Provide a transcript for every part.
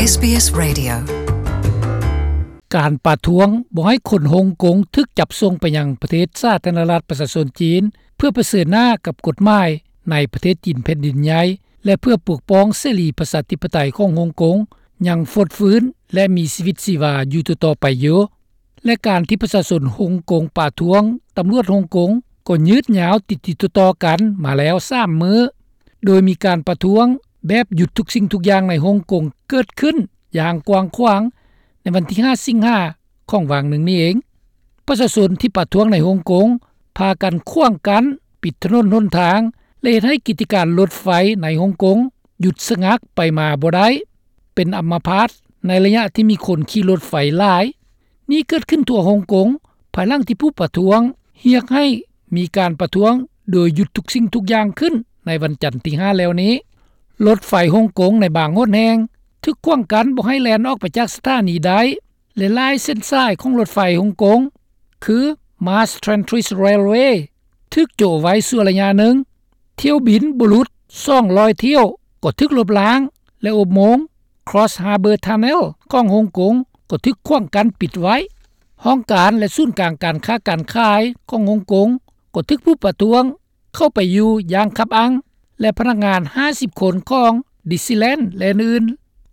ເອສບີເອສ Radio. ການປະທ້ວງບໍ່ໃຫ້ຄົນຮົງກົງຖືກຈັບສົ່ງໄປຍັງປະເທດສາທາລະນະລັດປະຊາຊົນຈີນ ເພື່ອປະເຊີນໜ້າກັບກົດໝາຍໃນປະເທດຈີນແຜ່ນດິນໃຫຍ່ ແລະ ເພື່ອປົກປ້ອງເສລີປະຊາທິປະໄຕຂອງຮົງກົງ ຍັງຟົດຟື້ນ ແລະ ມີຊີວິດຊີວາຢູ່ຕໍ່ໆໄປຢູ່. ແລະ ການທີ່ປະຊາຊົນຮົງກົງປະທ້ວງຕຳຫຼວດຮົງກົງ ກໍຍືດຍາວຕິດໆຕໍ່ໆກັນມາແລ້ວສາມມື້ ໂດຍມີການປະທ້ວງແບບຢຸດທຸກສິ່ງທຸກຢ່າງໃນຮົງກົງເກີດຂຶ້ນຢ່າງກວ້າງຂວາງ ໃນວັນທີຫ້າ ສິງຫາ ຂອງຫວ່າງໜຶ່ງນີ້ເອງ. ປະຊາຊົນທີ່ປະທ້ວງໃນຮົງກົງ ພາກັນຂວາງກັ້ນ, ປິດຖະໜົນຫົນທາງ ແລະ ເຮັດໃຫ້ກິດຈະການລົດໄຟໃນຮົງກົງຢຸດສະງັກໄປມາບໍ່ໄດ້, ເປັນອຳມະພາດໃນໄລຍະທີ່ມີຄົນຂີ່ລົດໄຟຫຼາຍ. ນີ້ເກີດຂຶ້ນທົ່ວຮົງກົງ ພາຍຫຼັງທີ່ຜູ້ປະທ້ວງຮຽກໃຫ້ມີການປະທ້ວງໂດຍຢຸດທຸກສິ່ງທຸກຢ່າງຂຶ້ນໃນວັນຈັນທີຫ້າແລ້ວນີ້. ລົດໄຟຮົງກົງໃນບາງຫົນແຫ່ງຖືກຂວາງກັ້ນບໍ່ໃຫ້ແລ່ນອອກໄປຈາກສະຖານີໄດ້ ແລະ ຫຼາຍເສັ້ນສາຍຂອງລົດໄຟຮົງກົງ ຄື Mass Transit Railway ຖືກໂຈະໄວ້ຊົ່ວໄລຍະໜຶ່ງ. ຖ້ຽວບິນບໍ່ຫຼຸດສອງຮ້ອຍຖ້ຽວກໍຖືກລົບລ້າງ ແລະ ອຸບໂມງ Cross Harbour Tunnel ຂອງຮົງກົງກໍຖືກຂວາງກັ້ນປິດໄວ້. ຫ້ອງການ ແລະ ສູນກາງການຄ້າການຂາຍຂອງຮົງກົງກໍຖືກຜູ້ປະທ້ວງເຂົ້າໄປຢູ່ຢ່າງຄັບອັ່ງ ແລະ ພະນັກງານຫ້າສິບຄົນຂອງ Disneyland ແລະ ອື່ນ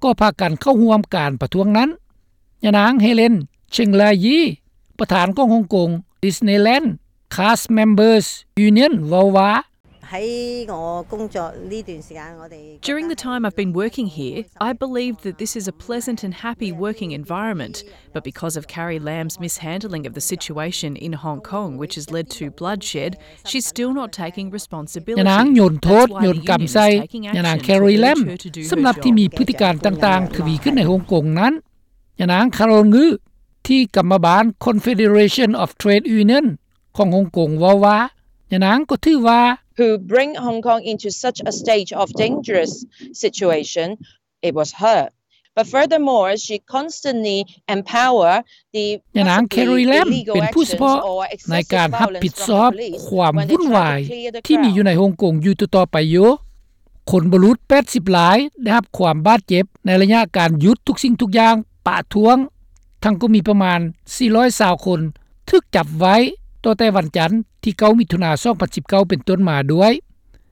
ໆ ກໍພາກັນເຂົ້າຮ່ວມການປະທ້ວງນັ້ນ. ຍານາງ Helen Cheng Lai Yi ປະທານຂອງຮົງກົງ Disneyland Cast Members Union ເວົ້າວ່າ During the time I've been working here, I believed that this is a pleasant and happy working environment, but because of Carrie Lam's mishandling of the situation in Hong Kong, which has led to bloodshed, she's still not taking responsibility. ຍານາງໂຍນໂທດ ໂຍນກຳໃສ່ຍານາງ Carrie Lam ສຳລັບທີ່ມີພຶດຕິການຕ່າງໆ ທະວີຂຶ້ນໃນຮົງກົງນັ້ນ. ຍານາງ Carol Ngui ທີ່ກຳມະບານ Confederation of Trade Union ຂອງຮົງກົງເວົ້າວ່າ ຍານາງກໍຖືວ່າ who bring Hong Kong into such a state of dangerous situation, it was her. But furthermore, she constantly empower the ຍານາງ Carrie Lam ເປັນຜູ້ສະເພາະໃນການຮັບຜິດຊອບຄວາມວຸ້ນວາຍທີ່ມີຢູ່ໃນຮົງກົງຢູ່ຕໍ່ໆໄປຢູ່. ຄົນບໍ່ຫຼຸດແປດສິບລາຍໄດ້ຮັບຄວາມບາດເຈັບໃນໄລຍະການຢຸດທຸກສິ່ງທຸກຢ່າງປະທ້ວງ, ທັງກໍມີປະມານສີ່ຮ້ອຍຊາວຄົນຖືກຈັບໄວ້ ຕໍ່ແຕ່ວັນຈັນທີເກົ້າ ມິຖຸນາ ສອງພັນສິບເກົ້າ ເປັນຕົ້ນມາດ້ວຍ.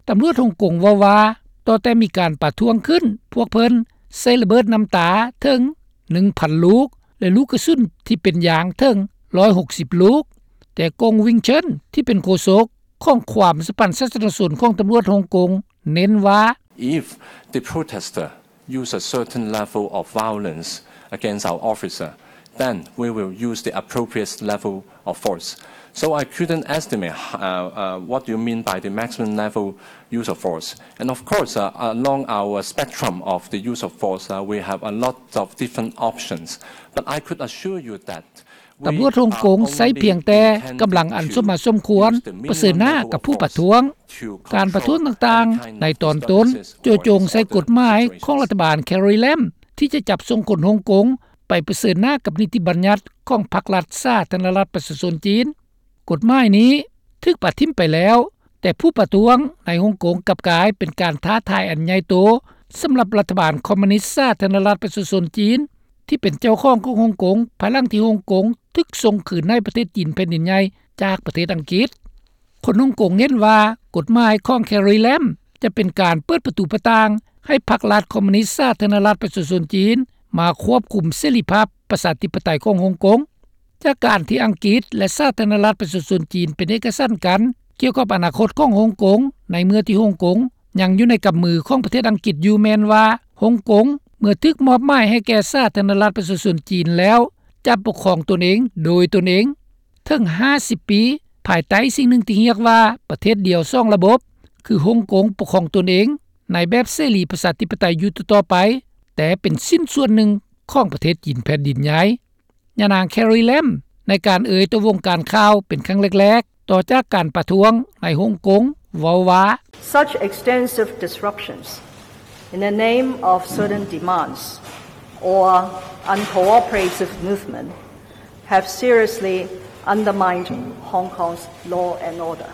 ຕຳຫຼວດຮົງກົງເວົ້າວ່າ ຕໍ່ແຕ່ມີການປະທ້ວງຂຶ້ນ ພວກເພິ່ນໃຊ້ລະເບີດນ້ຳຕາເຖິງໜຶ່ງພັນລູກ ແລະ ລູກກະສຸນທີ່ເປັນຢາງເຖິງຮ້ອຍຫົກສິບລູກ. ແຕ່ Gong Wing Chun ທີ່ເປັນໂຄສົກ ຂອງຄວາມສະພັນສາທາລະນະຊົນຂອງຕຳຫຼວດຮົງກົງ ເນັ້ນວ່າ If the protester use a certain level of violence against our officer, then we will use the appropriate level of force. So I couldn't estimate uh, uh, what do you mean by the maximum level use of force. And of course, uh, along our spectrum of the use of force, uh, we have a lot of different options. But I could assure you that ຕຳຫຼວດຮົງກົງໃຊ້ພຽງແຕ່ກຳລັງອັນສົມມາສົມຄວນປະເຊີນໜ້າກັບຜູ້ປະທ້ວງ. ການປະທ້ວງຕ່າງໆໃນຕອນຕົ້ນ ໂຈະຈົງໃສ່ກົດໝາຍຂອງລັດຖະບານ Carrie Lam ທີ່ຈະຈັບສົ່ງຄົນຮົງກົງໄປປະເຊີນໜ້າກັບນິຕິບັນຍັດຂອງພັກລັດສາທາລະນະລັດປະຊາຊົນຈີນ. ກົດໝາຍນີ້ຖືກປະຖິ້ມໄປແລ້ວ, ແຕ່ຜູ້ປະທ້ວງໃນຮົງກົງກັບກາຍເປັນການທ້າທາຍອັນໃຫຍ່ໂຕສຳລັບລັດຖະບານຄອມມູນິດສາທາລະນະລັດປະຊາຊົນຈີນ ທີ່ເປັນເຈົ້າຂອງຂອງຮົງກົງ ພາຍຫຼັງທີ່ຮົງກົງຖືກສົ່ງຄືນໃຫ້ປະເທດຈີນແຜ່ນດິນໃຫຍ່ຈາກປະເທດອັງກິດ. ຄົນຮົງກົງເຫັນວ່າກົດໝາຍຂອງ Carrie Lam ຈະເປັນການເປີດປະຕູປະຕ່າງໃຫ້ພັກລັດຄອມມູນິດສາທາລະນະລັດປະຊາຊົນຈີນມາຄວບຄຸມເສລີພາບປະຊາທິປະໄຕຂອງຮົງກົງ. ຈາກການທີ່ອັງກິດ ແລະ ສາທາລະນະລັດປະຊາຊົນຈີນເປັນເອກະສັນກັນກ່ຽວກັບອະນາຄົດຂອງຮົງກົງ ໃນເມື່ອທີ່ຮົງກົງຍັງຢູ່ໃນກຳມືຂອງປະເທດອັງກິດຢູ່ ແມ່ນວ່າຮົງກົງເມື່ອຖືກມອບໝາຍໃຫ້ແກ່ສາທາລະນະລັດປະຊາຊົນຈີນແລ້ວ ຈະປົກຄອງຕົນເອງໂດຍຕົນເອງ. ເຖິງຫ້າສິບປີ ພາຍໃຕ້ສິ່ງໜຶ່ງທີ່ຮຽກວ່າປະເທດດຽວສອງລະບົບ ຄືຮົງກົງປົກຄອງຕົນເອງໃນແບບເສລີປະຊາທິປະໄຕຢູ່ຕໍ່ໆໄປ, ແຕ່ເປັນຊິ້ນສ່ວນໜຶ່ງຂອງປະເທດຈີນແຜ່ນດິນໃຫຍ່. ຍານາງ Carrie Lam ໃນການເອີ່ຍຕໍ່ວົງການຂ່າວເປັນຄັ້ງແລກໆ ຕໍ່ຈາກການປະທ້ວງໃນຮົງກົງ ເວົ້າວ່າ Such extensive disruptions in the name of certain demands or uncooperative movement have seriously undermined Hong Kong's law and order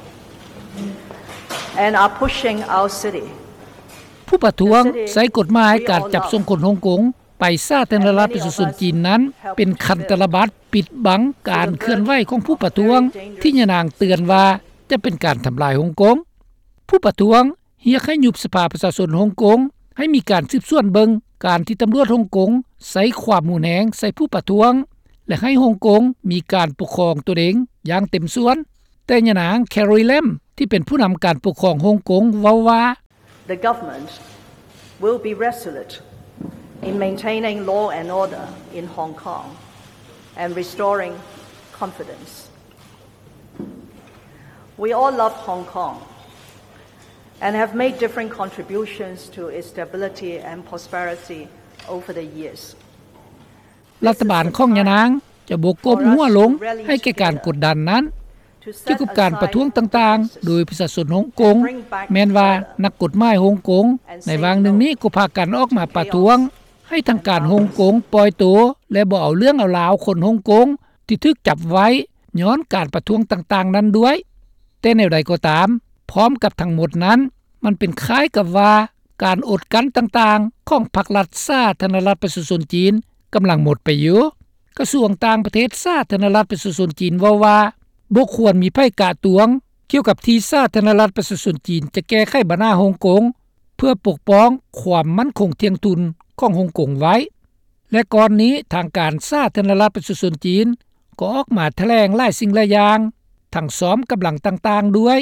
and are pushing our city ຜູ້ປະທ້ວງໃຊ້ກົດໝາຍການຈັບສົ່ງຄົນຮົງກົງ ໄປສາທາລະນະລັດປະຊາຊົນຈີນນັ້ນ ເປັນຄັນຕະລະບັດປິດບັງການເຄື່ອນໄຫວຂອງຜູ້ປະທ້ວງ ທີ່ຍານາງເຕືອນວ່າຈະເປັນການທຳລາຍຮົງກົງ. ຜູ້ປະທ້ວງຮຽກໃຫ້ຍຸບສະພາປະຊາຊົນຮົງກົງ, ໃຫ້ມີການສືບສວນເບິ່ງການທີ່ຕຳຫຼວດຮົງກົງໃຊ້ຄວາມຮຸນແຮງໃສ່ຜູ້ປະທ້ວງ ແລະ ໃຫ້ຮົງກົງມີການປົກຄອງຕົນເອງຢ່າງເຕັມສ່ວນ. ແຕ່ຍານາງ Carrie Lam ທີ່ເປັນຜູ້ນຳການປົກຄອງຮົງກົງເວົ້າວ່າ The government will be resolute in maintaining law and order in Hong Kong and restoring confidence. We all love Hong Kong and have made different contributions to its stability and prosperity over the years. ລັດຖະບານຂອງຍານາງຈະບໍ່ກົ້ມຫົວລົງໃຫ້ແກ່ການກົດດັນນັ້ນ. ກ່ຽວກັບການປະທ້ວງຕ່າງໆ ໂດຍປະຊາຊົນຮົງກົງ, ແມ່ນວ່ານັກກົດໝາຍຮົງກົງໃນຫວ່າງໜຶ່ງນີ້ກໍພາກັນອອກມາປະທ້ວງໃຫ້ທາງການຮົງກົງປ່ອຍໂຕ ແລະ ບໍ່ເອົາເລື່ອງເອົາລາວຄົນຮົງກົງທີ່ຖືກຈັບໄວ້ຍ້ອນການປະທ້ວງຕ່າງໆນັ້ນດ້ວຍ. ແຕ່ແນວໃດກໍຕາມ, ພ້ອມກັບທັງໝົດນັ້ນ, ມັນເປັນຄ້າຍກັບວ່າການອົດກັ້ນຕ່າງໆຂອງພັກລັດສາທາລະນະລັດປະຊາຊົນຈີນກຳລັງໝົດໄປຢູ່. ກະຊວງຕ່າງປະເທດສາທາລະນະລັດປະຊາຊົນຈີນເວົ້າວ່າ ບໍ່ຄວນມີໃຜກະຕວງກ່ຽວກັບທີ່ສາທາລະນະລັດປະຊາຊົນຈີນຈະແກ້ໄຂບັນຫາຮົງກົງ ເພື່ອປົກປ້ອງຄວາມໝັ້ນຄົງທ່ຽງທຸນຂອງຮົງກົງໄວ້. ແລະ ກ່ອນນີ້ທາງການສາທາລະນະລັດປະຊາຊົນຈີນກໍອອກມາຖະແຫຼງຫຼາຍສິ່ງຫຼາຍຢ່າງ, ທັງຊ້ອມກຳລັງຕ່າງໆດ້ວຍ,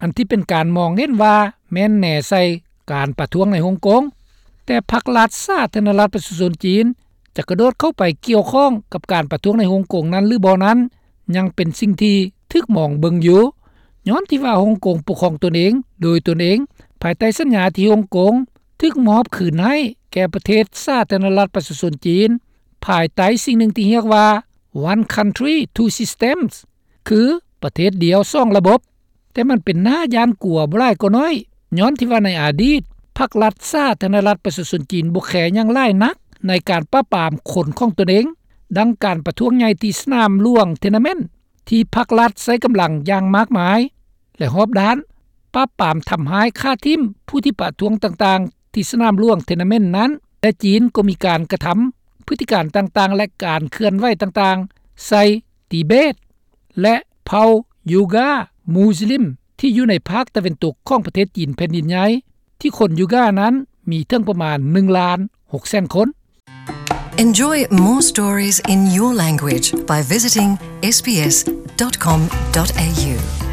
ອັນທີ່ເປັນການມອງເຫັນວ່າແມ່ນແນໃສ່ການປະທ້ວງໃນຮົງກົງ. ແຕ່ພັກລັດສາທາລະນະລັດປະຊາຊົນຈີນຈະກະໂດດເຂົ້າໄປກ່ຽວຂ້ອງກັບການປະທ້ວງໃນຮົງກົງນັ້ນຫຼືບໍ່ນັ້ນ ຍັງເປັນສິ່ງທີ່ຖືກມອງເບິ່ງຢູ່, ຍ້ອນທີ່ວ່າຮົງກົງປົກຄອງຕົນເອງໂດຍຕົນເອງ ພາຍໃຕ້ສັນຍາທີ່ຮົງກົງຖືກມອບຄືນໃຫ້ແກ່ປະເທດສາທາລະນະລັດປະຊາຊົນຈີນ ພາຍໃຕ້ສິ່ງໜຶ່ງທີ່ຮຽກວ່າ One Country, Two Systems ຄືປະເທດດຽວສອງລະບົບ. ແຕ່ມັນເປັນໜ້າຢ້ານກົວບໍ່ຫຼາຍກໍໜ້ອຍ, ຍ້ອນທີ່ວ່າໃນອະດີດ ພັກລັດສາທາລະນະລັດປະຊາຊົນຈີນບໍ່ແຄຫຍັງຫຼາຍນັກໃນການປາບປາມຄົນຂອງຕົນເອງ, ດັ່ງການປະທ້ວງໃຫຍ່ທີ່ສະໜາມຫຼວງ Tiananmen ທີ່ພັກລັດໃຊ້ກຳລັງຢ່າງມາກມາຍ ແລະ ຮອບດ້ານ, ປາບປາມທຳຮ້າຍຂ້າຖິ້ມຜູ້ທີ່ປະທ້ວງຕ່າງໆທີ່ສະໜາມຫຼວງ Tiananmen ນັ້ນ ແລະ ຈີນກໍມີການກະທຳພຶດຕິການຕ່າງໆ ແລະ ການເຄື່ອນໄຫວຕ່າງໆໃສ່ ຕິເບດ ແລະ ເຜົ່າຢູກາ ມຸສລິມ ທີ່ຢູ່ໃນພາກຕາເວັນຕົກຂອງປະເທດຈີນແຜ່ນດິນໃຫຍ່ ທີ່ຄົນຢູການັ້ນມີເຖິງປະມານໜຶ່ງລ້ານຫົກແສນຄົນ. Enjoy more stories in your language by visiting S B S dot com dot A U.